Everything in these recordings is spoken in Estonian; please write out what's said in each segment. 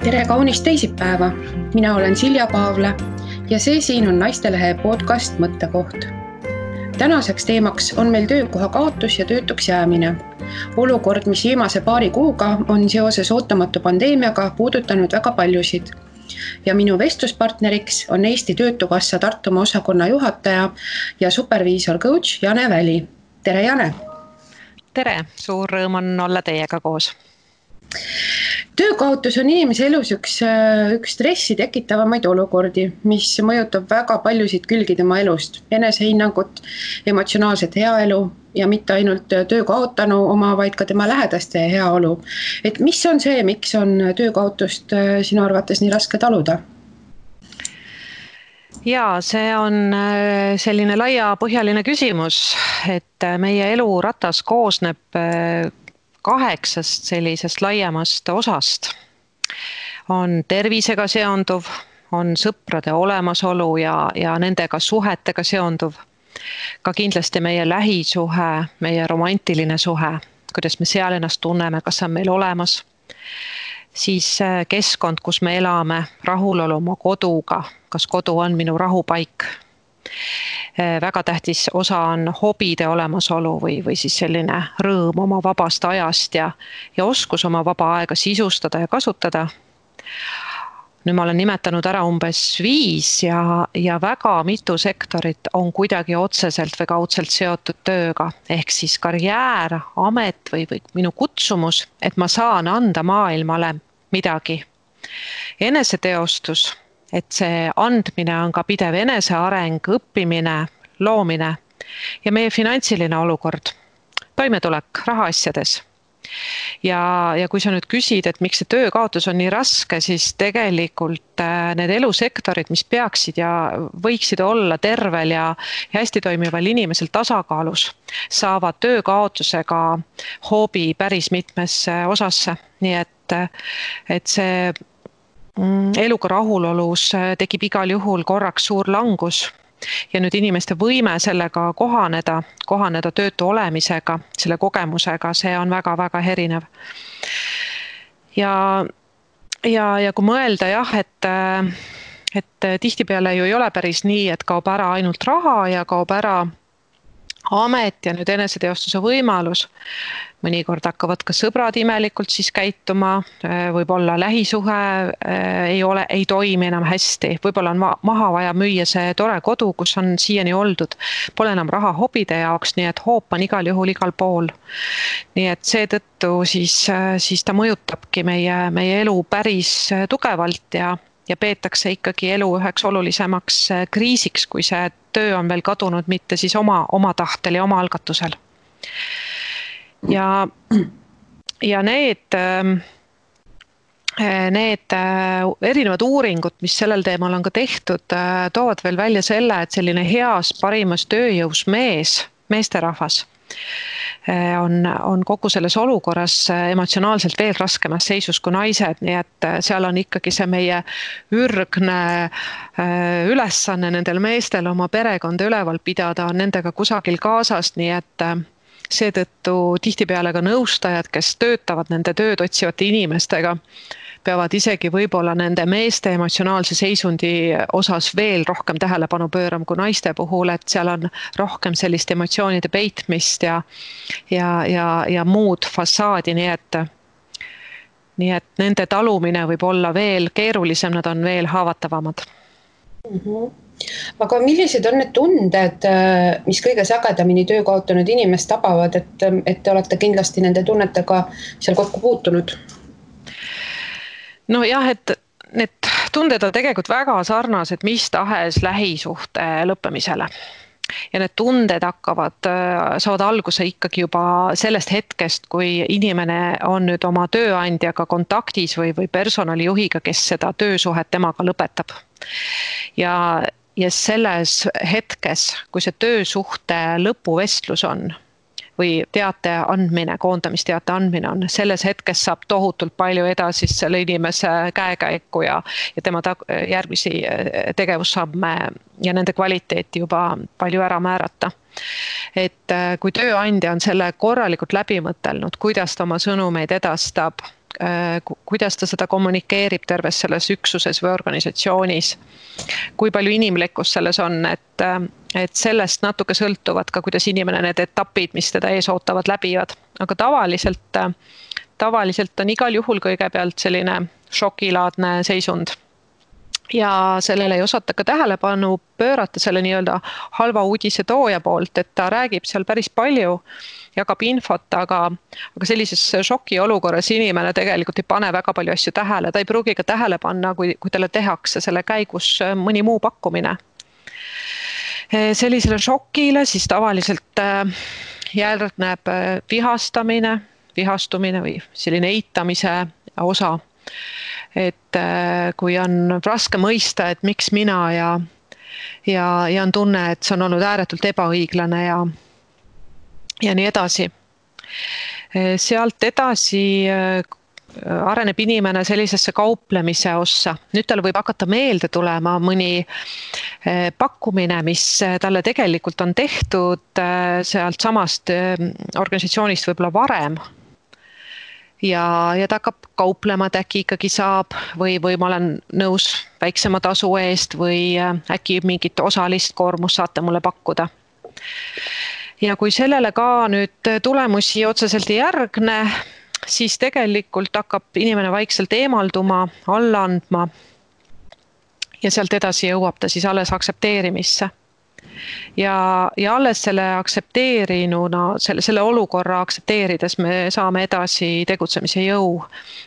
Tere kaunist teisipäeva! Mina olen Silja Paavla ja see siin on Naistelehe podcast Mõttekoht. Tänaseks teemaks on meil töökoha kaotus ja töötuks jäämine. Olukord, mis viimase paari kuuga on seoses ootamatu pandeemiaga puudutanud väga paljusid. Ja minu vestluspartneriks on Eesti Töötukassa Tartumaa osakonna juhataja ja superviisor coach Jane Väli. Tere Jane! Tere! Suur rõõm on olla teiega koos. Töökaotus on inimese elus üks stressi tekitavamaid olukordi, mis mõjutab väga paljusid külgi tema elust, enesehinnangut, emotsionaalset heaelu ja mitte ainult töökaotanu oma, vaid ka tema lähedaste heaolu. Et mis on see, miks on töökaotust sinu arvates nii raske taluda? Jaa, see on selline laiapõhjaline küsimus, et meie eluratas koosneb 8 sellisest laiemast osast. On tervisega seonduv, on sõprade olemasolu ja nendega suhetega seonduv. Ka kindlasti meie lähisuhe, meie romantiline suhe, kuidas me seal ennast tunneme, kas on meil olemas. Siis keskkond, kus me elame, rahulolu oma koduga, kas kodu on minu rahupaik. Väga tähtis osa on hobide olemasolu või siis selline rõõm oma vabast ajast ja oskus oma vaba aega sisustada ja kasutada. Nüüd ma olen nimetanud ära umbes 5 ja väga mitu sektorit on kuidagi otseselt või kaudselt seotud tööga. Ehk siis karjäär, amet või minu kutsumus, et ma saan anda maailmale midagi. Eneseteostus. Et see andmine on ka pidev eneseareng, õppimine, loomine ja meie finantsiline olukord, toimetulek rahaasjades. Ja kui sa nüüd küsid, et miks see töökaotus on nii raske, siis tegelikult need elusektorid, mis peaksid ja võiksid olla tervel ja hästi toimival inimesel tasakaalus, saavad töökaotusega hoobi päris mitmesse osasse. Nii et see eluga rahulolus tekib igal juhul korraks suur langus ja nüüd inimeste võime sellega kohaneda töötu olemisega, selle kogemusega, see on väga-väga erinev. Ja kui mõelda et tihtipeale ju ei ole päris nii, et kaob ära ainult raha ja kaob ära amet ja nüüd eneseteostuse võimalus. Mõnikord hakkavad ka sõbrad imelikult siis käituma, võib-olla lähisuhe ei toimi enam hästi, võib-olla on maha vaja müüa see tore kodu, kus on siiani oldud, pole enam raha hobide jaoks, nii et hoop on igal juhul igal pool. Nii et seetõttu siis ta mõjutabki meie elu päris tugevalt ja peetakse ikkagi elu üheks olulisemaks kriisiks, kui see töö on veel kadunud, mitte siis oma tahtel ja oma algatusel. Ja need erinevad uuringud, mis sellel teemal on ka tehtud, toovad veel välja selle, et selline heas parimas tööjõus meesterahvas on kogu selles olukorras emotsionaalselt veel raskemas seisus kui naised, nii et seal on ikkagi see meie ürgne ülesanne nendel meestel oma perekonda üleval pidada, on nendega kusagil kaasas, nii et seetõttu tihtipeale ka nõustajad, kes töötavad nende tööd otsivate inimestega, peavad isegi võib-olla nende meeste emotsionaalse seisundi osas veel rohkem tähelepanu pöörama kui naiste puhul, et seal on rohkem sellist emotsioonide peitmist ja muud fassaadi, nii et nende talumine võib olla veel keerulisem, nad on veel haavatavamad. Aga millised on need tunded, mis kõige sagedamini töö kaotanud inimest tabavad, et te olete kindlasti nende tunnetega seal kokku puutunud? No jah, et need tunded on tegelikult väga sarnased mis tahes lähisuhte lõppemisele. Ja need tunded saavad alguse ikkagi juba sellest hetkest, kui inimene on nüüd oma tööandjaga kontaktis või personalijuhiga, kes seda töösuhet temaga lõpetab. Ja selles hetkes, kui see töösuhte lõpuvestlus on või teate andmine, koondamisteate andmine on, selles hetkes saab tohutult palju edasist selle inimese käekäiku ja tema järgmisi tegevussamme ja nende kvaliteeti juba palju ära määrata. Et kui tööandja on selle korralikult läbi mõtelnud, kuidas ta oma sõnumeid edastab, kuidas ta seda kommunikeerib terves selles üksuses või organisatsioonis, kui palju inimlikkust selles on, et sellest natuke sõltuvad ka, kuidas inimene need etapid, mis teda ees ootavad, läbivad. Aga tavaliselt on igal juhul kõigepealt selline šokilaadne seisund. Ja sellele ei osata ka tähelepanu pöörata selle nii-öelda halva uudise tooja poolt, et ta räägib seal päris palju, jagab infot, aga sellises šoki olukorras inimene tegelikult ei pane väga palju asju tähele, ta ei pruugi ka tähele panna, kui talle tehakse selle käigus mõni muu pakkumine. Sellisele šokile siis tavaliselt järgneb vihastumine või selline eitamise osa. Et kui on raske mõista, et miks mina ja on tunne, et see on olnud ääretult ebaõiglane ja nii edasi. Sealt edasi areneb inimene sellisesse kauplemise ossa. Nüüd talle võib hakata meelde tulema mõni pakkumine, mis talle tegelikult on tehtud sealt samast organisatsioonist võib-olla varem. Ja ta hakkab kauplema, et äkki ikkagi saab või ma olen nõus väiksema tasu eest või äkki mingit osalist koormust saate mulle pakkuda. Ja kui sellele ka nüüd tulemusi otseselt ei järgne, siis tegelikult hakkab inimene vaikselt eemalduma, alla andma ja sealt edasi jõuab ta siis alles aktsepteerimisse. Ja alles selle aktsepteerinuna, selle olukorra aktsepteerides me saame edasi tegutsemise jõu.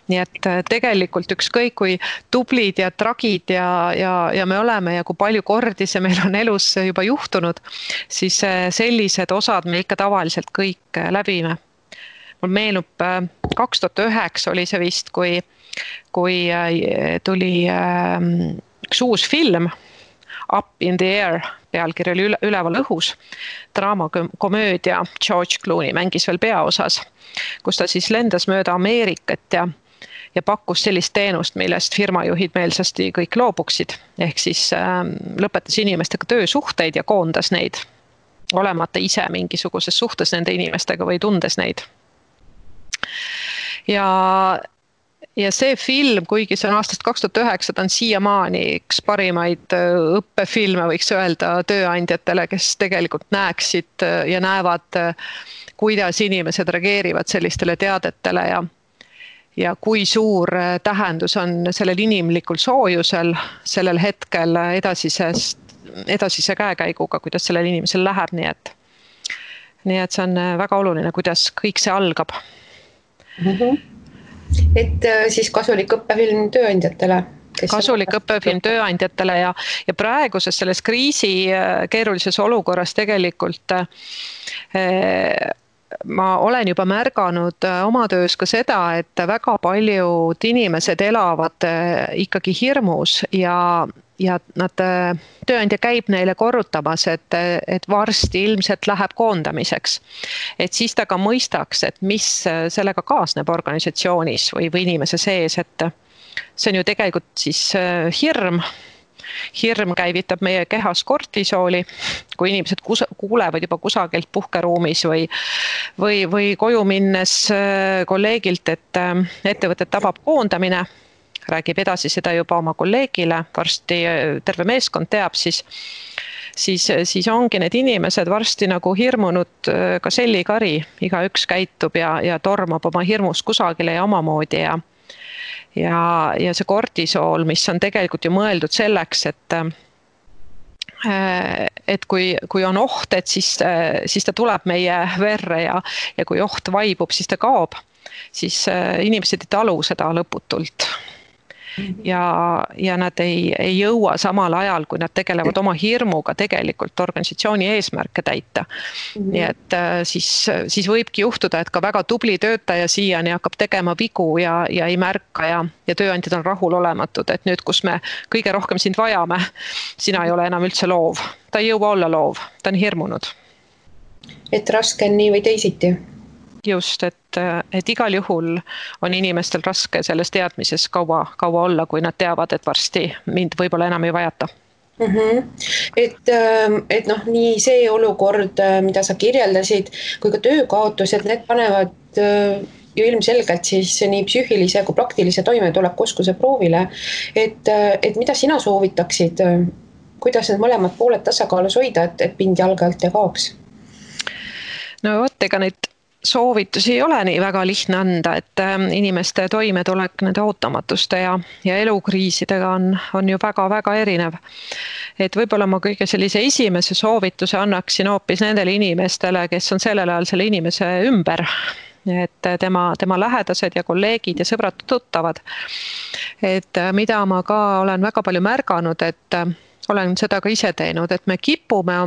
Nii et tegelikult ükskõik kui tublid ja tragid ja me oleme ja kui palju kordi see meil on elus juba juhtunud, siis sellised osad me ikka tavaliselt kõik läbime. Mul meenub 2009 oli see vist, kui tuli üks uus film, Up in the Air, pealkiri oli üleval õhus, draamakomöödia, George Clooney mängis veel peaosas, kus ta siis lendas mööda Ameerikat ja pakkus sellist teenust, millest firmajuhid meelsasti kõik loobuksid, ehk siis lõpetas inimestega töösuhteid ja koondas neid, olemata ise mingisuguses suhtes nende inimestega või tundes neid. Ja see film, kuigi see on aastast 2009, ta on siiamaani üks parimaid õppefilme, võiks öelda tööandjatele, kes tegelikult näeksid ja näevad, kuidas inimesed reageerivad sellistele teadetele ja kui suur tähendus on sellel inimlikul soojusel sellel hetkel edasise käekäiguga, kuidas sellel inimesel läheb, nii et see on väga oluline, kuidas kõik see algab. Et siis kasulik õppefilm tööandjatele. Kasulik õppefilm tööandjatele ja praeguses selles kriisi keerulises olukorras tegelikult ma olen juba märganud oma töös ka seda, et väga paljud inimesed elavad ikkagi hirmus ja tööandja käib neile korrutamas, et varsti ilmselt läheb koondamiseks. Et siis ta ka mõistaks, et mis sellega kaasneb organisatsioonis või inimese sees, et see on ju tegelikult siis hirm. Hirm käivitab meie kehas kortisooli, kui inimesed kuulevad juba kusagilt puhkeruumis või koju minnes kolleegilt, et ettevõtet tabab koondamine, räägib edasi seda juba oma kolleegile, varsti terve meeskond teab, siis ongi need inimesed varsti nagu hirmunud ka sellikari, igaüks käitub ja tormab oma hirmus kusagile ja omamoodi ja see kortisool, mis on tegelikult ju mõeldud selleks, et kui on oht, et siis ta tuleb meie verre ja kui oht vaibub, siis ta kaob, siis inimesed ei talu seda lõputult. Ja nad ei jõua samal ajal, kui nad tegelevad oma hirmuga tegelikult organisatsiooni eesmärke täita. Nii et siis võibki juhtuda, et ka väga tubli töötaja siiani hakkab tegema vigu ja ei märka ja tööandjad on rahulolematud, et nüüd, kus me kõige rohkem sind vajame, sina ei ole enam üldse loov. Ta ei jõua olla loov, ta on hirmunud. Et raske on nii või teisiti. Just, et igal juhul on inimestel raske selles teadmises kaua olla, kui nad teavad, et varsti mind võib-olla enam ei vajata. Et nii see olukord, mida sa kirjeldasid, kui ka töökaotused, need panevad ju ilmselgelt siis nii psüühilise kui praktilise toimetuleku oskuse proovile, et mida sina soovitaksid, kuidas need mõlemad pooled tasakaalus hoida, et pind jalge alt ei kaoks? No vot, ega neid soovitusi ei ole nii väga lihtne anda, et inimeste toimetulek nende ootamatuste ja elukriisidega on ju väga-väga erinev. Et võib-olla ma kõige sellise esimese soovituse annaksin hoopis nendele inimestele, kes on sellel ajal selle inimese ümber. Et tema lähedased ja kolleegid ja sõbrad tuttavad. Et mida ma ka olen väga palju märganud, et olen seda ka ise teinud, et me kipume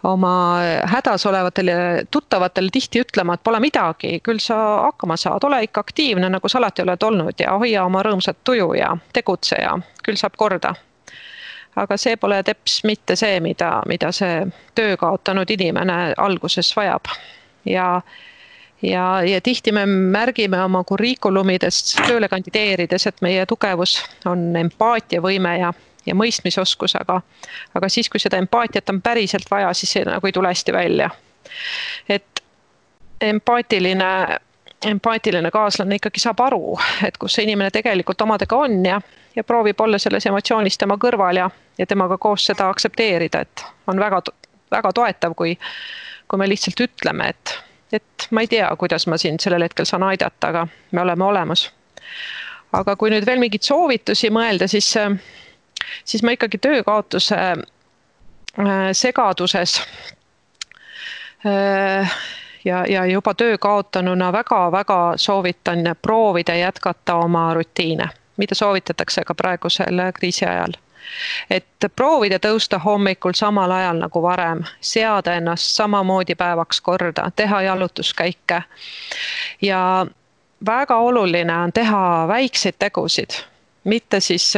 oma hädas olevatele tuttavatele tihti ütlema, et pole midagi, küll sa hakkama saad, ole ikka aktiivne, nagu sa alati oled olnud ja hoia oma rõõmsat tuju ja tegutse ja küll saab korda. Aga see pole teps mitte see, mida see töö kaotanud inimene alguses vajab. Ja tihti me märgime oma kurrikulumidest tööle kandideerides, et meie tugevus on empaatiavõime ja mõistmisoskus, aga siis, kui seda empaatiat on päriselt vaja, siis see nagu ei tule hästi välja. Et empaatiline kaaslane ikkagi saab aru, et kus see inimene tegelikult omadega on ja proovib olla selles emotsioonis tema kõrval ja temaga koos seda aksepteerida, et on väga, väga toetav, kui me lihtsalt ütleme, et ma ei tea, kuidas ma sind sellel hetkel saan aidata, aga me oleme olemas. Aga kui nüüd veel mingid soovitusi mõelda, siis ma ikkagi töökaotuse segaduses ja juba töö kaotanuna väga-väga soovitan proovida jätkata oma rutiine, mida soovitatakse ka praegusel kriisi ajal. Et proovida tõusta hommikul samal ajal nagu varem, seada ennast samamoodi päevaks korda, teha jalutuskäike. Ja väga oluline on teha väikseid tegusid, mitte siis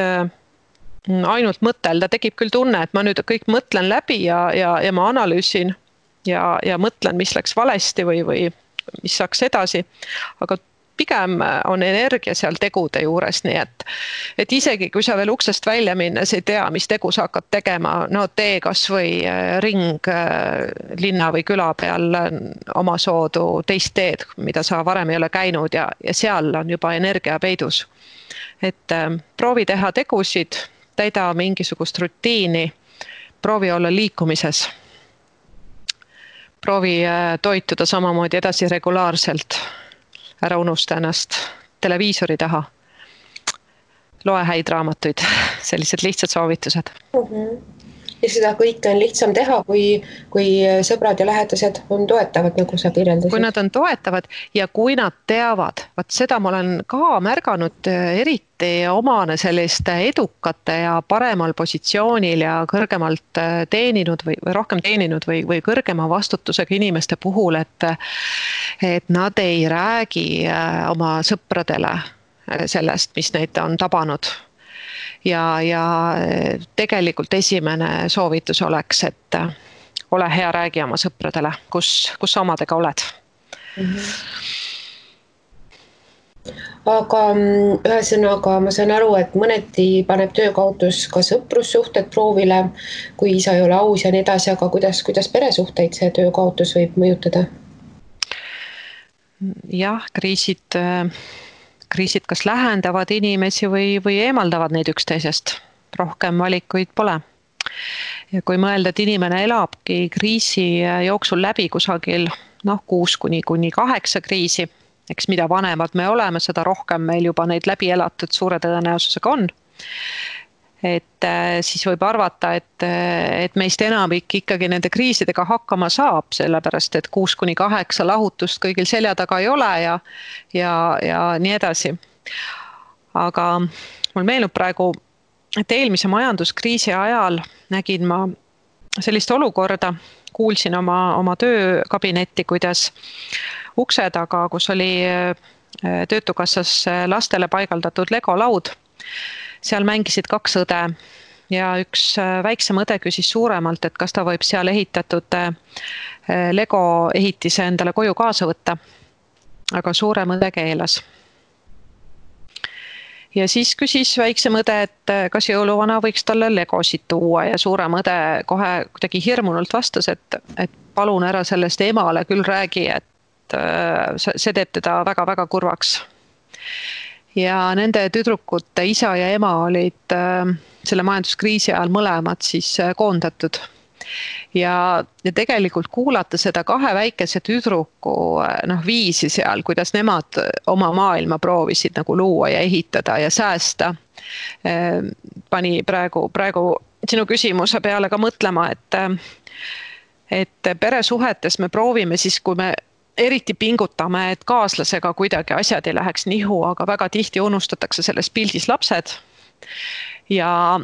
ainult mõtelda, tekib küll tunne, et ma nüüd kõik mõtlen läbi ja ma analüüsin ja mõtlen, mis läks valesti või mis saaks edasi, aga pigem on energia seal tegude juures, nii et isegi kui sa veel uksest välja minnes ei tea, mis tegu sa hakkad tegema, no tee kas või ring linna või küla peal oma soodu teist teed, mida sa varem ei ole käinud ja seal on juba energia peidus. Et proovi teha tegusid, täida mingisugust rutiini, proovi olla liikumises, proovi toituda samamoodi edasi regulaarselt, ära unusta ennast televiisori taha, loe häid raamatuid, sellised lihtsad soovitused. Ja seda kõike on lihtsam teha, kui sõbrad ja lähedased on toetavad, nagu sa kirjeldasid. Kui nad on toetavad ja kui nad teavad, vaat seda ma olen ka märganud eriti omane selliste edukate ja paremal positsioonil ja kõrgemalt teeninud või rohkem teeninud või kõrgema vastutusega inimeste puhul, et nad ei räägi oma sõpradele sellest, mis neid on tabanud. Ja tegelikult esimene soovitus oleks, et ole hea, räägi oma sõpradele, kus omadega oled. Aga ühesõnaga ma saan aru, et mõneti paneb töökaotus ka sõprussuhted proovile, kui isa ei ole aus ja nii edasi, aga kuidas peresuhteid see töökaotus võib mõjutada? Jah, kriisid kas lähendavad inimesi või eemaldavad neid üksteisest. Rohkem valikuid pole. Ja kui mõelda, et inimene elabki kriisi jooksul läbi kusagil 6–8 kriisi, eks mida vanemad me oleme, seda rohkem meil juba neid läbi elatud suure tõenäosusega on. Et siis võib arvata, et meist enamik ikkagi nende kriisidega hakkama saab, sellepärast et 6–8 lahutust kõigil selja taga ei ole ja nii edasi. Aga mul meenub praegu, et eelmise majanduskriisi ajal nägin ma sellist olukorda, kuulsin oma töökabinetti, kuidas ukse taga, kus oli Töötukassas lastele paigaldatud Lego-laud, seal mängisid 2 õde ja üks väiksem õde küsis suuremalt, et kas ta võib seal ehitatud Lego ehitise endale koju kaasa võtta, aga suurem õde keelas. Ja siis küsis väiksem õde, et kas jõuluvana võiks talle Legosid tuua ja suurem õde kohe kuidagi hirmunult vastas, et palun ära sellest emale küll räägi, see teeb teda väga-väga kurvaks. Ja nende tüdrukute isa ja ema olid selle majanduskriisi ajal mõlemad siis koondatud. Ja tegelikult kuulata seda kahe väikese tüdruku viisi seal, kuidas nemad oma maailma proovisid nagu luua ja ehitada ja säästa, pani praegu sinu küsimuse peale ka mõtlema, et peresuhetes me proovime siis, kui me eriti pingutame, et kaaslasega kuidagi asjad ei läheks nihu, aga väga tihti unustatakse selles pildis lapsed. Ja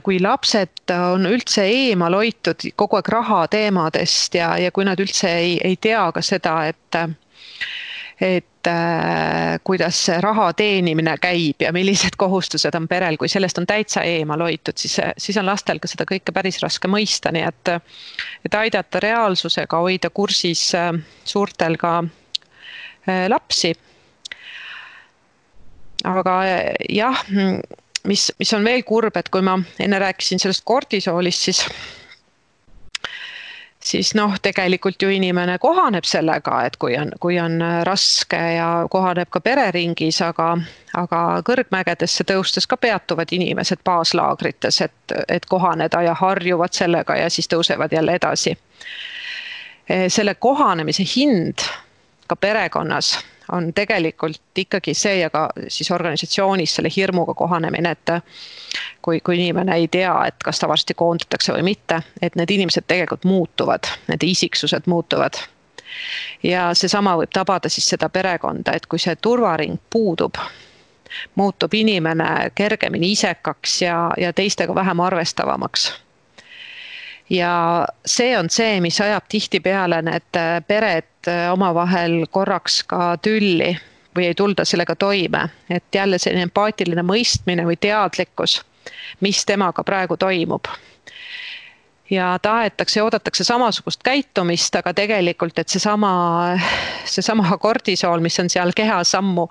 kui lapsed on üldse eemal hoitud kogu aeg raha teemadest ja kui nad üldse ei tea ka seda, et kuidas see raha teenimine käib ja millised kohustused on perel, kui sellest on täitsa eemal hoitud, siis on lastel ka seda kõike päris raske mõista, nii et aidata reaalsusega hoida kursis suurtel ka lapsi. Aga jah, mis on veel kurb, et kui ma enne rääkisin sellest kortisoolist, siis tegelikult ju inimene kohaneb sellega, et kui on raske ja kohaneb ka pereringis, aga kõrgmägedesse tõustes ka peatuvad inimesed baaslaagrites, et kohaneda ja harjuvad sellega ja siis tõusevad jälle edasi. Selle kohanemise hind ka perekonnas on tegelikult ikkagi see ja ka siis organisatsioonis selle hirmuga kohanemine, et kui inimene ei tea, et kas ta varsti koondatakse või mitte, et need inimesed tegelikult muutuvad, need isiksused muutuvad. Ja seesama võib tabada siis seda perekonda, et kui see turvaring puudub, muutub inimene kergemini isekaks ja teistega vähem arvestavamaks. Ja see on see, mis ajab tihtipeale need pered omavahel korraks ka tülli või ei tulda sellega toime. Et jälle selline empaatiline mõistmine või teadlikkus, mis temaga praegu toimub. Ja tahetakse ja oodatakse samasugust käitumist, aga tegelikult, et seesama kortisool, mis on seal kehas ammu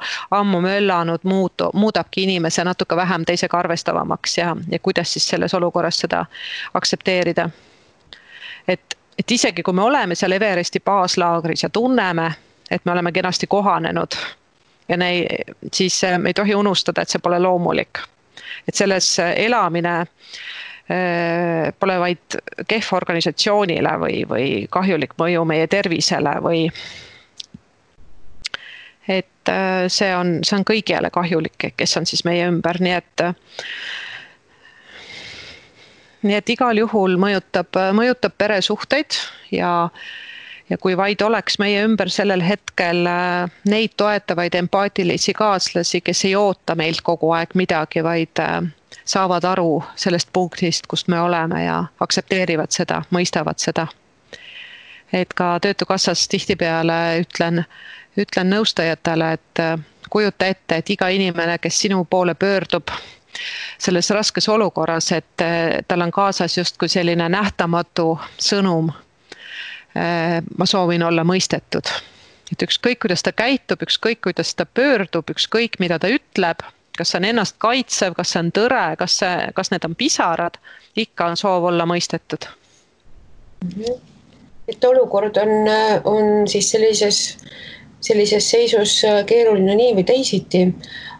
möllanud, muudabki inimese natuke vähem teisega arvestavamaks ja kuidas siis selles olukorras seda aktsepteerida. Et isegi kui me oleme seal Everesti baaslaagris ja tunneme, et me oleme kenasti kohanenud, ja siis me ei tohi unustada, et see pole loomulik. Et selles elamine pole vaid kehv organisatsioonile või kahjulik mõju meie tervisele et see on kõigile kahjulik, kes on siis meie ümber, nii et igal juhul mõjutab peresuhteid ja kui vaid oleks meie ümber sellel hetkel neid toetavaid empaatilisi kaaslasi, kes ei oota meilt kogu aeg midagi, vaid saavad aru sellest punktist, kust me oleme ja aktsepteerivad seda, mõistavad seda. Et ka Töötukassas tihtipeale ütlen nõustajatele, et kujuta ette, et iga inimene, kes sinu poole pöördub selles raskes olukorras, et tal on kaasas justkui selline nähtamatu sõnum. Ma soovin olla mõistetud. Et ükskõik, kuidas ta käitub, ükskõik, kuidas ta pöördub, ükskõik, mida ta ütleb, kas see on ennast kaitsev, kas see on tõre, kas need on pisarad, ikka on soov olla mõistetud. Et olukord on siis sellises seisus keeruline nii või teisiti,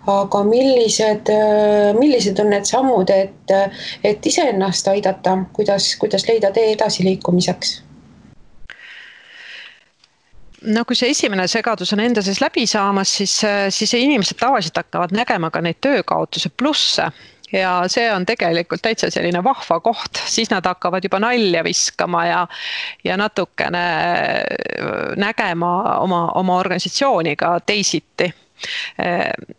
aga millised on need sammud, et iseennast aidata, kuidas leida tee edasiliikumiseks? No kui see esimene segadus on enda sees läbi saamas, siis inimesed tavaliselt hakkavad nägema ka neid töökaotuse plusse. Ja see on tegelikult täitsa selline vahva koht, siis nad hakkavad juba nalja viskama ja natukene nägema oma organisatsiooniga teisiti.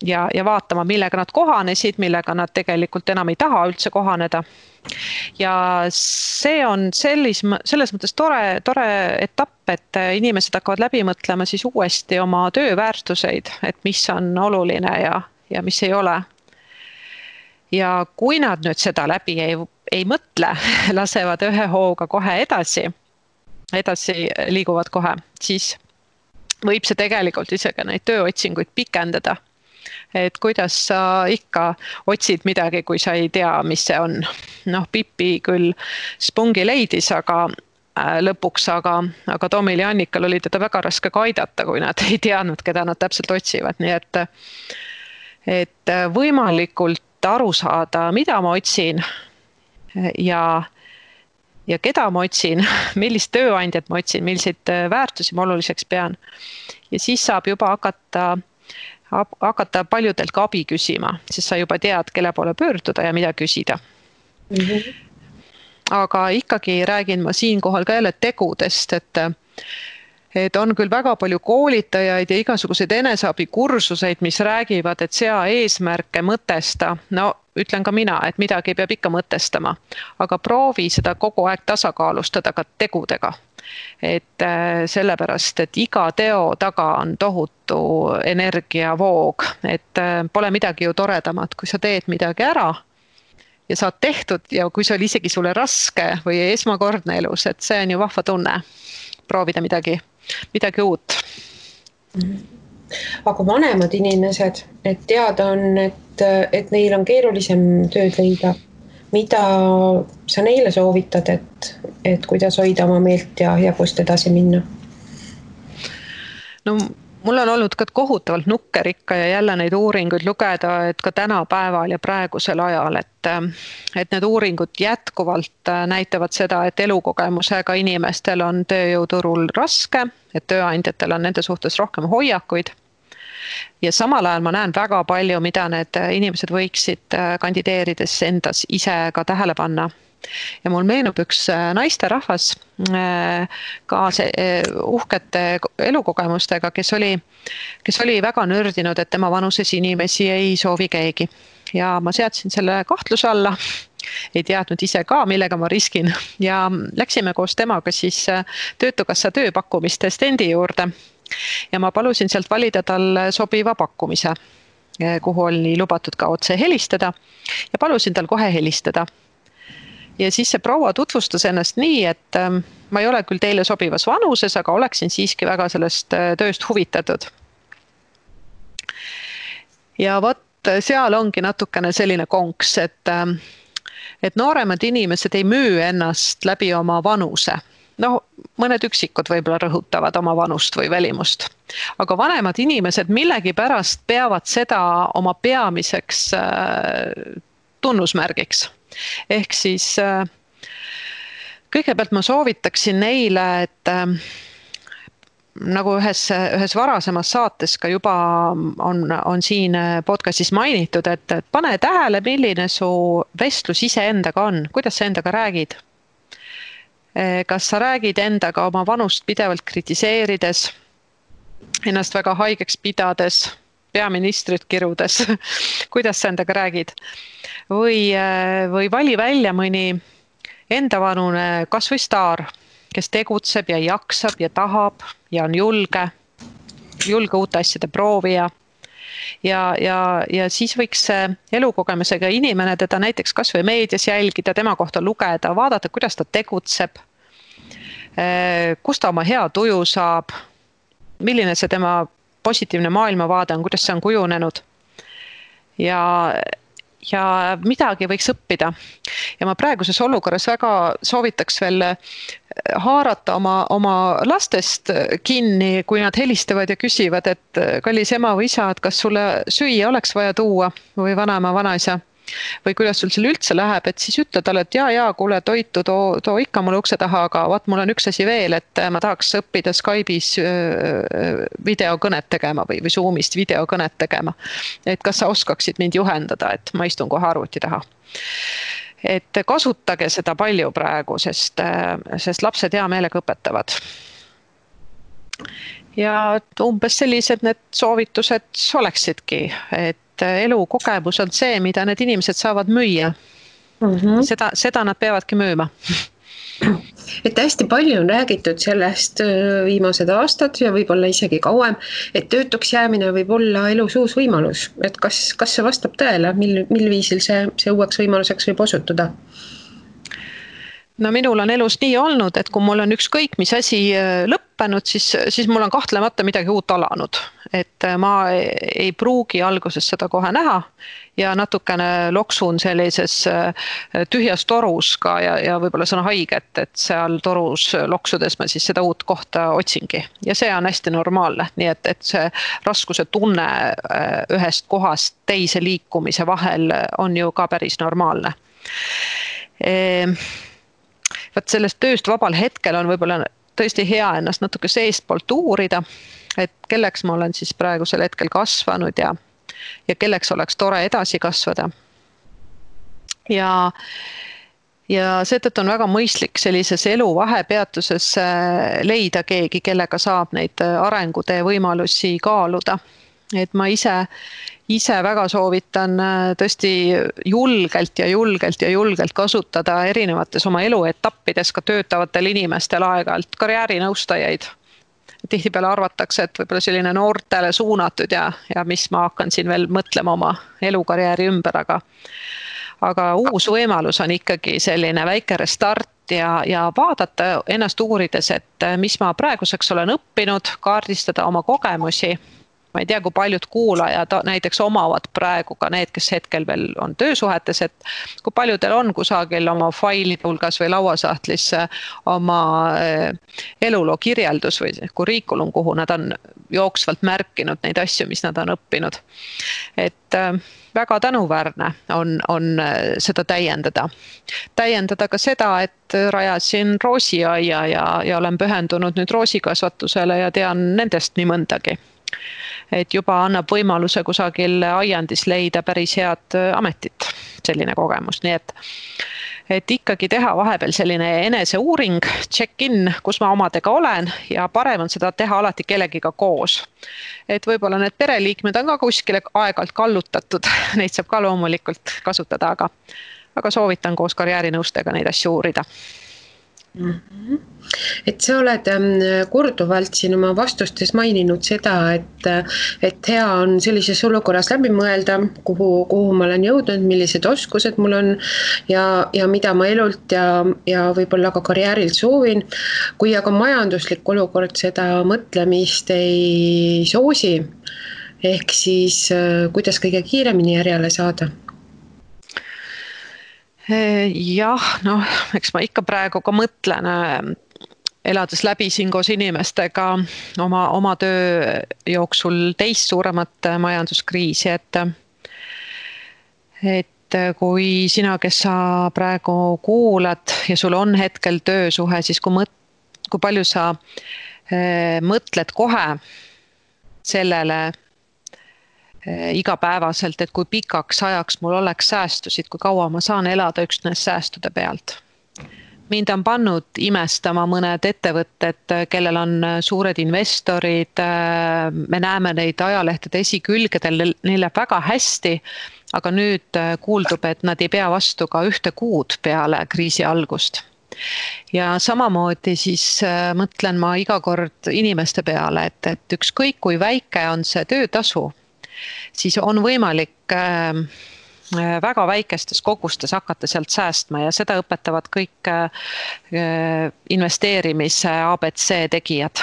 Ja vaatama, millega nad kohanesid, millega nad tegelikult enam ei taha üldse kohaneda. Ja see on selles mõttes tore etapp, et inimesed hakkavad läbi mõtlema siis uuesti oma tööväärtuseid, et mis on oluline ja mis ei ole. Ja kui nad nüüd seda läbi ei mõtle, lasevad ühe hooga kohe edasi liiguvad kohe, siis võib see tegelikult isegi neid tööotsinguid pikendada. Et kuidas sa ikka otsid midagi, kui sa ei tea, mis see on. Pipi küll spungi leidis, aga lõpuks, aga Tomil ja Annikal oli teda väga raske ka aidata, kui nad ei teadnud, keda nad täpselt otsivad, nii et võimalikult aru saada, mida ma otsin ja keda ma otsin, millist tööandjat ma otsin, milliseid väärtusi ma oluliseks pean. Ja siis saab juba hakata paljudelt ka abi küsima, siis sa juba tead, kelle poole pöörduda ja mida küsida. Aga ikkagi räägin ma siinkohal ka jälle tegudest, et on küll väga palju koolitajaid ja igasuguseid eneseabikursuseid, mis räägivad, et sea eesmärke, mõtesta. No ütlen ka mina, et midagi peab ikka mõtestama, aga proovi seda kogu aeg tasakaalustada ka tegudega. Et sellepärast, et iga teo taga on tohutu energiavoog, et pole midagi ju toredamat, kui sa teed midagi ära ja saad tehtud ja kui see oli isegi sulle raske või esmakordne elus, et see on ju vahva tunne proovida midagi uut. Aga vanemad inimesed, et teada on, et neil on keerulisem tööd leida. Mida sa neile soovitad, et kuidas hoida oma meelt ja kust edasi minna? No mul on olnud ka kohutavalt nukkerikka ja jälle neid uuringuid lugeda, et ka tänapäeval ja praegusel ajal, et need uuringud jätkuvalt näitavad seda, et elukogemusega inimestel on tööjõuturul raske, et tööandjatel on nende suhtes rohkem hoiakuid. Ja samal ajal ma näen väga palju, mida need inimesed võiksid kandideerides endas ise ka tähele panna. Ja mul meenub üks naisterahvas ka uhkete elukogemustega, kes oli väga nördinud, et tema vanuses inimesi ei soovi keegi. Ja ma seadsin selle kahtluse alla, ei teadnud ise ka, millega ma riskin. Ja läksime koos temaga siis Töötukassa tööpakkumiste stendi juurde. Ja ma palusin sealt valida tal sobiva pakkumise, kuhu oli lubatud ka otse helistada ja palusin tal kohe helistada. Ja siis see proua tutvustas ennast nii, et ma ei ole küll teile sobivas vanuses, aga oleksin siiski väga sellest tööst huvitatud. Ja vot seal ongi natukene selline konks, et nooremad inimesed ei müü ennast läbi oma vanuse. No, mõned üksikud võib-olla rõhutavad oma vanust või välimust. Aga vanemad inimesed millegi pärast peavad seda oma peamiseks tunnusmärgiks. Ehk siis kõigepealt ma soovitaksin neile, et nagu ühes varasemas saates ka juba on siin podcastis mainitud, et pane tähele, milline su vestlus iseendaga on, kuidas sa endaga räägid. Kas sa räägid endaga oma vanust pidevalt kritiseerides, ennast väga haigeks pidades, peaministrit kirudes, kuidas sa endaga räägid? Või vali välja mõni endavanune kas või staar, kes tegutseb ja jaksab ja tahab ja on julge uute asjade proovija. Ja siis võiks elukogemusega inimene teda näiteks kas või meedias jälgida, tema kohta lugeda, vaadata, kuidas ta tegutseb, kust ta oma hea tuju saab, milline see tema positiivne maailmavaade on, kuidas see on kujunenud. Ja midagi võiks õppida. Ja ma praeguses olukorras väga soovitaks veel haarata oma lastest kinni, kui nad helistavad ja küsivad, et kallis ema või isa, et kas sulle süüa oleks vaja tuua või vanaema, vanaisa või kuidas sul seal üldse läheb, et siis ütle talle, et jaa, kuule toitu, too ikka mulle ukse taha, aga vaat mul on üks asi veel, et ma tahaks õppida Skype'is videokõnet tegema või Zoomist videokõnet tegema. Et kas sa oskaksid mind juhendada, et ma istun kohe arvuti taha. Et kasutage seda palju praegu, sest lapsed hea meelega õpetavad. Ja umbes sellised need soovitused oleksidki, et elukogemus on see, mida need inimesed saavad müüa. Seda nad peavadki müüma. Et hästi palju on räägitud sellest viimased aastad ja võib-olla isegi kauem, et töötuks jäämine võib olla elus uus võimalus. Et kas see vastab tõele, mil viisil see uueks võimaluseks võib osutuda? no minul on elus nii olnud, et kui mul on ükskõik mis asi lõppenud, siis mul on kahtlemata midagi uut alanud. Et ma ei pruugi alguses seda kohe näha ja natukene loksun sellises tühjas torus ka ja võib-olla see on haige, et seal torus loksudes ma siis seda uut kohta otsingi. Ja see on hästi normaalne, nii et see raskuse tunne ühest kohast teise liikumise vahel on ju ka päris normaalne. Vaat sellest tööst vabal hetkel on võib-olla tõesti hea ennast natuke seestpoolt uurida, et kelleks ma olen siis praegusel hetkel kasvanud ja kelleks oleks tore edasi kasvada. Ja seetõttu on väga mõistlik sellises elu vahepeatuses leida keegi, kellega saab neid arengutee võimalusi kaaluda. Et ma ise väga soovitan tõesti julgelt kasutada erinevates oma eluetappides ka töötavatel inimestel aeg-ajalt karjäärinõustajaid. Tihtipeale arvatakse, et võib-olla selline noortele suunatud ja mis ma hakkan siin veel mõtlema oma elukarjääri ümber, aga uus võimalus on ikkagi selline väike restart ja vaadata ennast uurides, et mis ma praeguseks olen õppinud, kaardistada oma kogemusi. Ma ei tea, kui paljud kuulajad näiteks omavad praegu ka need, kes hetkel veel on töösuhetes, et kui paljudel on kusagil oma faili hulgas või lauasahtlis oma eluloo kirjeldus või kuriikulum, kuhu nad on jooksvalt märkinud neid asju, mis nad on õppinud. Et väga tänuväärne on seda täiendada. Täiendada ka seda, et rajasin roosiaia ja olen pühendunud nüüd roosikasvatusele ja tean nendest nii mõndagi. Et juba annab võimaluse kusagil aiandis leida päris head ametit, selline kogemus. Nii et ikkagi teha vahepeal selline eneseuuring, check-in, kus ma omadega olen ja parem on seda teha alati kellegiga koos. Et võib-olla need pereliikmed on ka kuskile aeg-ajalt kallutatud, neid saab ka loomulikult kasutada, aga soovitan koos karjäärinõustega neid asju uurida. Et sa oled korduvalt siin oma vastustes maininud seda, et hea on sellises olukorras läbi mõelda, kuhu ma olen jõudnud, millised oskused mul on ja mida ma elult ja võib-olla ka karjäärilt soovin. Kui aga majanduslik olukord seda mõtlemist ei soosi, ehk siis kuidas kõige kiiremini järjele saada? Jah, eks ma ikka praegu ka mõtlen, elades läbi siin koos inimestega oma töö jooksul teist suuremat majanduskriisi, et kui sina, kes sa praegu kuulad ja sul on hetkel töösuhe, siis kui palju sa mõtled kohe sellele igapäevaselt, et kui pikaks ajaks mul oleks säästusid, kui kaua ma saan elada üksnes säästude pealt. Mind on pannud imestama mõned ettevõtted, kellel on suured investorid, me näeme neid ajalehtede esikülgedel, neil läheb väga hästi, aga nüüd kuuldub, et nad ei pea vastu ka 1 kuud peale kriisi algust. Ja samamoodi siis mõtlen ma iga kord inimeste peale, et ükskõik kui väike on see töötasu, siis on võimalik väga väikestes kogustes hakata sealt säästma ja seda õpetavad kõik investeerimise ABC tegijad.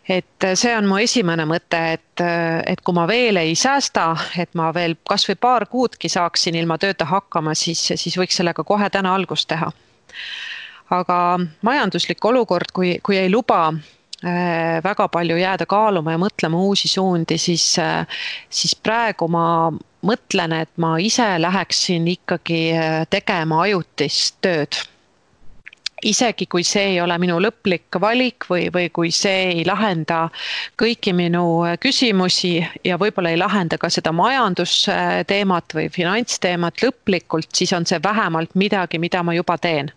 Et see on mu esimene mõte, et kui ma veel ei säästa, et ma veel kas või 2 kuudki saaksin ilma tööta hakkama, siis võiks sellega kohe täna algust teha. Aga majanduslik olukord, kui ei luba väga palju jääda kaaluma ja mõtlema uusi suundi, siis praegu ma mõtlen, et ma ise läheksin ikkagi tegema ajutist tööd. Isegi kui see ei ole minu lõplik valik või kui see ei lahenda kõiki minu küsimusi ja võib-olla ei lahenda ka seda majandusteemat või finantsteemat lõplikult, siis on see vähemalt midagi, mida ma juba teen.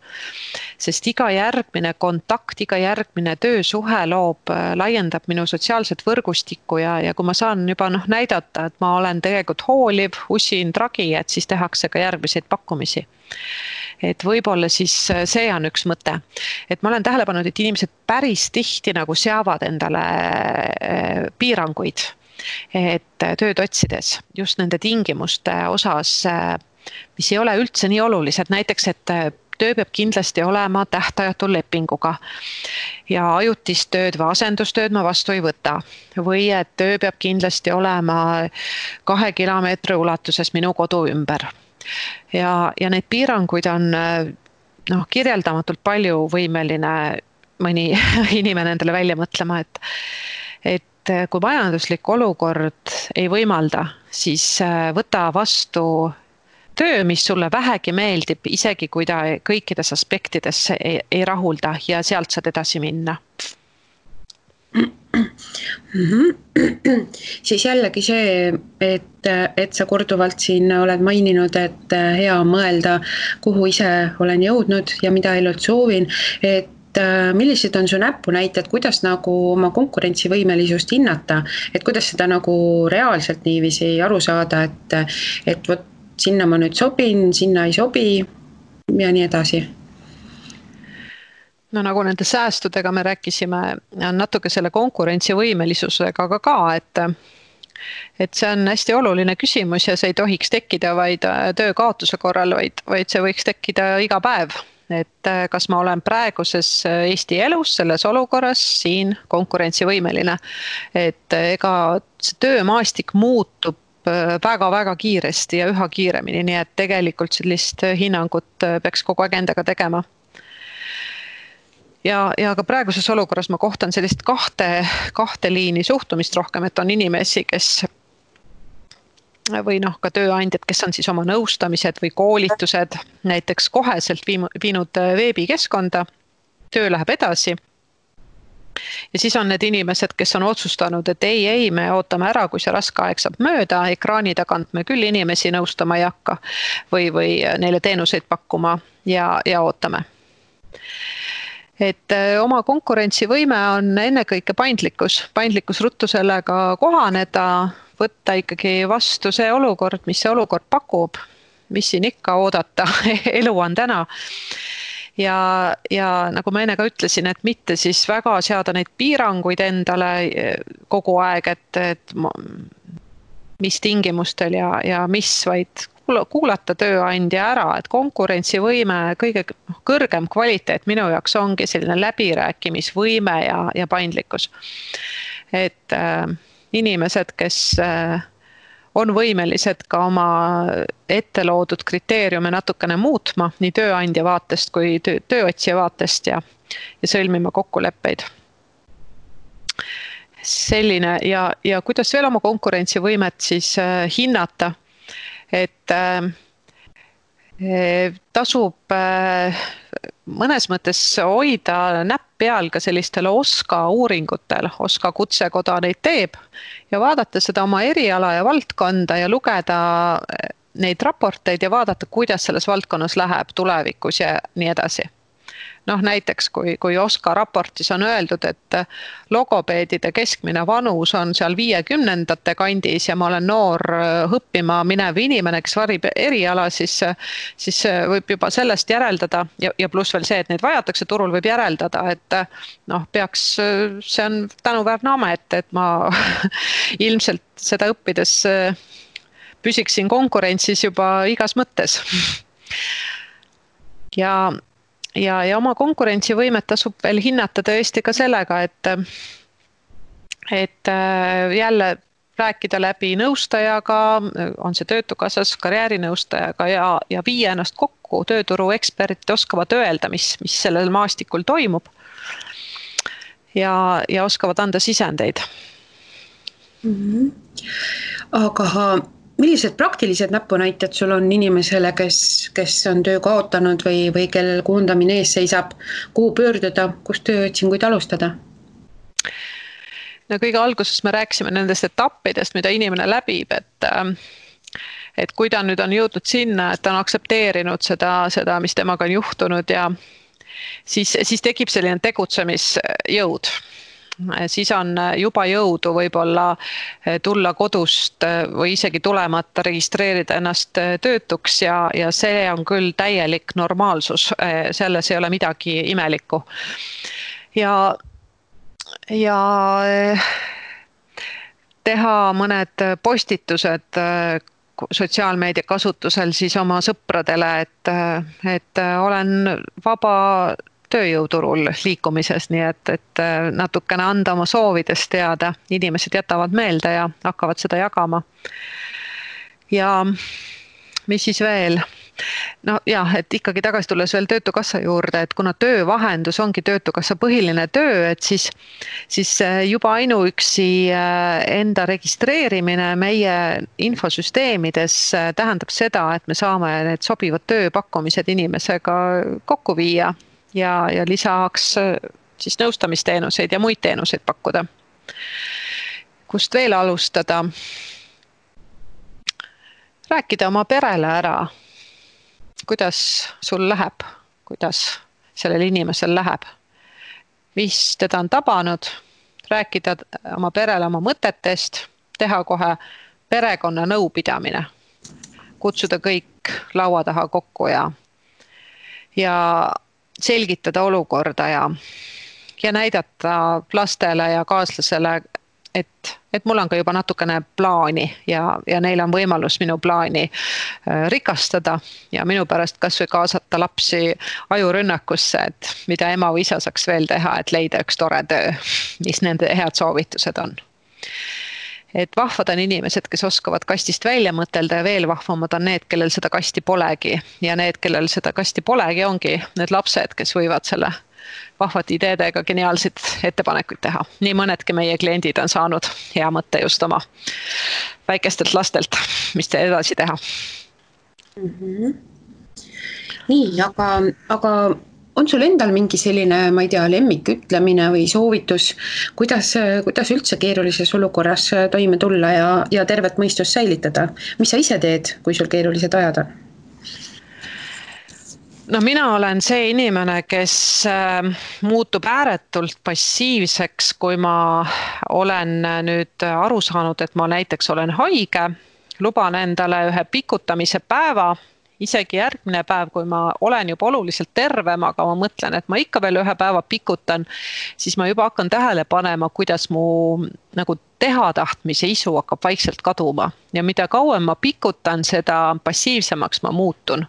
Sest iga järgmine kontakt, iga järgmine töösuhe laiendab minu sotsiaalset võrgustikku ja kui ma saan juba näidata, et ma olen tegelikult hooliv, usin tragi, et siis tehakse ka järgmiseid pakkumisi. Et võib-olla siis see on üks mõte. Et ma olen tähele pannud, et inimesed päris tihti seavad endale piiranguid, et tööd otsides just nende tingimuste osas, mis ei ole üldse nii olulised. Näiteks, et töö peab kindlasti olema tähtajatu lepinguga ja ajutist tööd või asendustööd ma vastu ei võta. Või et töö peab kindlasti olema 2 kilomeetri ulatuses minu kodu ümber. Ja neid piiranguid on kirjeldamatult palju võimeline mõni inimene endale välja mõtlema, et kui majanduslik olukord ei võimalda, siis võta vastu töö, mis sulle vähegi meeldib, isegi kui ta kõikides aspektides ei rahulda ja sealt saad edasi minna. Siis jällegi see, et sa korduvalt siin oled maininud, et hea on mõelda, kuhu ise olen jõudnud ja mida elult soovin, et millised on su näpunäited, kuidas nagu oma konkurentsivõimelisust hinnata, et kuidas seda nagu reaalselt niiviisi aru saada, et võt, sinna ma nüüd sobin, sinna ei sobi ja nii edasi? No nagu nende säästudega me rääkisime, on natuke selle konkurentsivõimelisusega ka, et see on hästi oluline küsimus ja see ei tohiks tekkida vaid töö kaotuse korral, vaid see võiks tekkida iga päev. Et kas ma olen praeguses Eesti elus selles olukorras siin konkurentsivõimeline, et ega see töömaastik muutub väga-väga kiiresti ja üha kiiremini, nii et tegelikult sellist hinnangut peaks kogu aeg endaga tegema. Ja ka praeguses olukorras ma kohtan sellist kahte liini suhtumist rohkem, et on inimesi, kes või ka tööandjad, kes on siis oma nõustamised või koolitused näiteks koheselt viinud veebikeskkonda, töö läheb edasi. Ja siis on need inimesed, kes on otsustanud, et ei, me ootame ära, kui see raske aeg saab mööda, ekraani tagant me küll inimesi nõustama ei hakka või neile teenuseid pakkuma ja ootame. Et oma konkurentsivõime on ennekõike paindlikkus ruttu sellega kohaneda, võtta ikkagi vastu see olukord, mis see olukord pakub, mis siin ikka oodata, elu on täna. Ja nagu ma enne ka ütlesin, et mitte siis väga seada neid piiranguid endale kogu aeg, et mis tingimustel ja mis, vaid kuulata tööandja ära, et konkurentsivõime kõige kõrgem kvaliteet minu jaoks ongi selline läbirääkimisvõime ja paindlikkus. Et inimesed, kes on võimelised ka oma ette loodud kriteeriume natukene muutma nii tööandja vaatest kui tööotsija vaatest ja sõlmima kokkuleppeid. Selline ja kuidas veel oma konkurentsivõimet siis hinnata, et tasub mõnes mõttes hoida näpp peal ka sellistele OSKA uuringutel, OSKA kutsekoda neid teeb ja vaadata seda oma eriala ja valdkonda ja lugeda neid raporteid ja vaadata, kuidas selles valdkonnas läheb tulevikus ja nii edasi. Näiteks kui OSKA raportis on öeldud, et logopeedide keskmine vanus on seal 50-ndate kandis ja ma olen noor õppima minev inimene, kes varib eriala, siis võib juba sellest järeldada ja pluss veel see, et neid vajatakse turul, võib järeldada, et peaks, see on tänuväärne amet, et ma ilmselt seda õppides püsiksin konkurentsis juba igas mõttes. Ja oma konkurentsivõimet tasub veel hinnata tõesti ka sellega, et jälle rääkida läbi nõustajaga, on see töötukassas karjäärinõustajaga ja viia ennast kokku, tööturu eksperdid oskavad öelda, mis sellel maastikul toimub ja oskavad anda sisendeid. Aga millised praktilised näpunäited sul on inimesele, kes on töö kaotanud või kellel koondamine ees seisab, kuhu pöörduda, kus tööotsinguid alustada? No kõige alguses me rääkisime nendest etappidest, mida inimene läbib, et kui ta nüüd on jõudnud sinna, et ta on aksepteerinud seda, mis temaga on juhtunud ja siis tekib selline tegutsemisjõud. Siis on juba jõudu võib-olla tulla kodust või isegi tulemata registreerida ennast töötuks ja see on küll täielik normaalsus, selles ei ole midagi imelikku. Ja teha mõned postitused sotsiaalmeedia kasutusel siis oma sõpradele, et olen vaba tööjõuturul liikumises, nii et natukene anda oma soovidest teada. Inimesed jätavad meelde ja hakkavad seda jagama. Ja mis siis veel? No jah, et ikkagi tagasi tulles veel Töötukassa juurde, et kuna töövahendus ongi Töötukassa põhiline töö, et siis juba ainuüksi enda registreerimine meie infosüsteemides tähendab seda, et me saame need sobivad tööpakkumised inimesega kokku viia ja lisaks siis nõustamisteenuseid ja muid teenuseid pakkuda. Kust veel alustada? Rääkida oma perele ära. Kuidas sul läheb, kuidas sellel inimesel läheb, mis teda on tabanud, rääkida oma perele oma mõtetest, teha kohe perekonna nõupidamine, kutsuda kõik laua taha kokku ja selgitada olukorda ja näidata lastele ja kaaslasele, et mul on ka juba natukene plaani ja neil on võimalus minu plaani rikastada ja minu pärast kas või kaasata lapsi ajurünnakusse, et mida ema või isa saaks veel teha, et leida üks tore töö, mis nende head soovitused on. Et vahvad on inimesed, kes oskavad kastist välja mõtelda ja veel vahvamad on need, kellel seda kasti polegi ja need, kellel seda kasti polegi, ongi need lapsed, kes võivad selle vahvate ideedega geniaalseid ettepanekuid teha. Nii mõnedki meie kliendid on saanud hea mõtte just oma väikestelt lastelt, mis te edasi teha. Nii, aga on sul endal mingi selline, ma ei tea, lemmikütlemine või soovitus, kuidas üldse keerulises olukorras toime tulla ja tervet mõistust säilitada? Mis sa ise teed, kui sul keerulised ajad on? No mina olen see inimene, kes muutub ääretult passiivseks, kui ma olen nüüd aru saanud, et ma näiteks olen haige, luban endale ühe pikutamise päeva, isegi järgmine päev, kui ma olen juba oluliselt tervem, aga ma mõtlen, et ma ikka veel ühe päeva pikutan, siis ma juba hakkan tähele panema, kuidas mu nagu tehatahtmise isu hakkab vaikselt kaduma. Ja mida kauem ma pikutan, seda passiivsemaks ma muutun.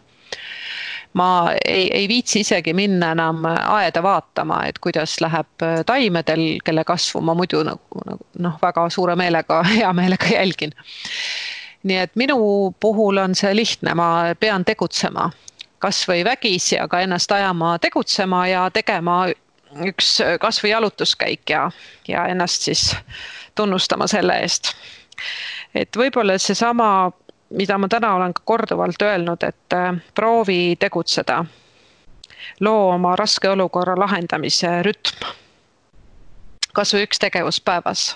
Ma ei viitsi isegi minna enam aeda vaatama, et kuidas läheb taimedel, kelle kasvu ma muidu väga suure meelega, hea meelega jälgin. Nii et minu puhul on see lihtne, ma pean tegutsema kas või vägisi, aga ennast ajama tegutsema ja tegema üks kas või jalutuskäik ja ennast siis tunnustama selle eest. Et võib-olla seesama, mida ma täna olen ka korduvalt öelnud, et proovi tegutseda, loo oma raske olukorra lahendamise rütm, kas või üks tegevus päevas.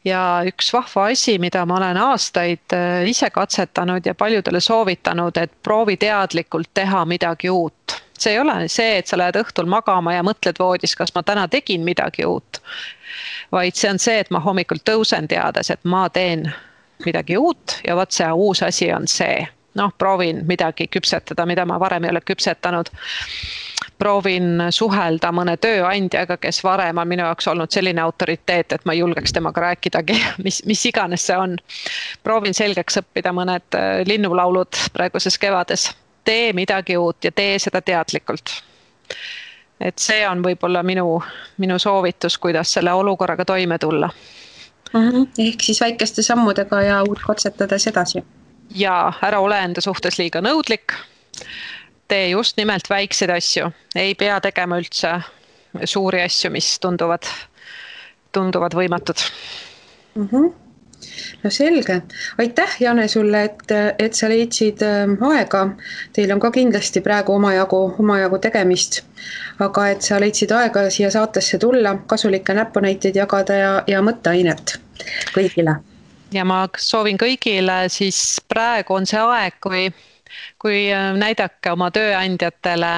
Ja üks vahva asi, mida ma olen aastaid ise katsetanud ja paljudele soovitanud, et proovi teadlikult teha midagi uut. See ei ole see, et sa lähed õhtul magama ja mõtled voodis, kas ma täna tegin midagi uut, vaid see on see, et ma hommikul tõusen teades, et ma teen midagi uut ja võt see uus asi on see. Proovin midagi küpsetada, mida ma varem ei ole küpsetanud. Proovin suhelda mõne tööandjaga, kes varem on minu jaoks olnud selline autoriteet, et ma ei julgeks temaga rääkidagi, mis iganes see on. Proovin selgeks õppida mõned linnulaulud praeguses kevades. Tee midagi uut ja tee seda teadlikult. Et see on võib-olla minu soovitus, kuidas selle olukorraga toime tulla. Ehk siis väikeste sammudega ja uut katsetades edasi. Ja ära ole enda suhtes liiga nõudlik. Tee just nimelt väikseid asju. Ei pea tegema üldse suuri asju, mis tunduvad võimatud. No selge. Aitäh, Jane, sulle, et sa leidsid aega. Teil on ka kindlasti praegu omajagu tegemist. Aga et sa leidsid aega siia saatesse tulla, kasulikke näpunäiteid jagada ja mõtteainet kõigile. Ja ma soovin kõigile, siis praegu on see aeg, kui näidake oma tööandjatele,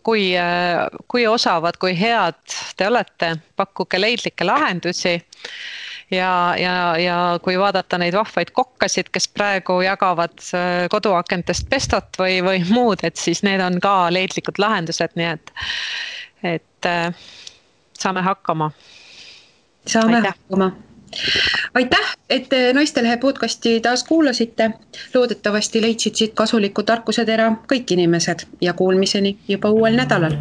kui osavad, kui head te olete, pakkuge leidlikke lahendusi ja kui vaadata neid vahvaid kokkasid, kes praegu jagavad koduakentest pestot või muud, et siis need on ka leidlikud lahendused, nii et saame hakkama. Saame hakkama. aitäh, et Naistelehe podcasti taas kuulasite. Loodetavasti leidsid siit kasuliku tarkusetera kõik inimesed ja kuulmiseni juba uuel nädalal.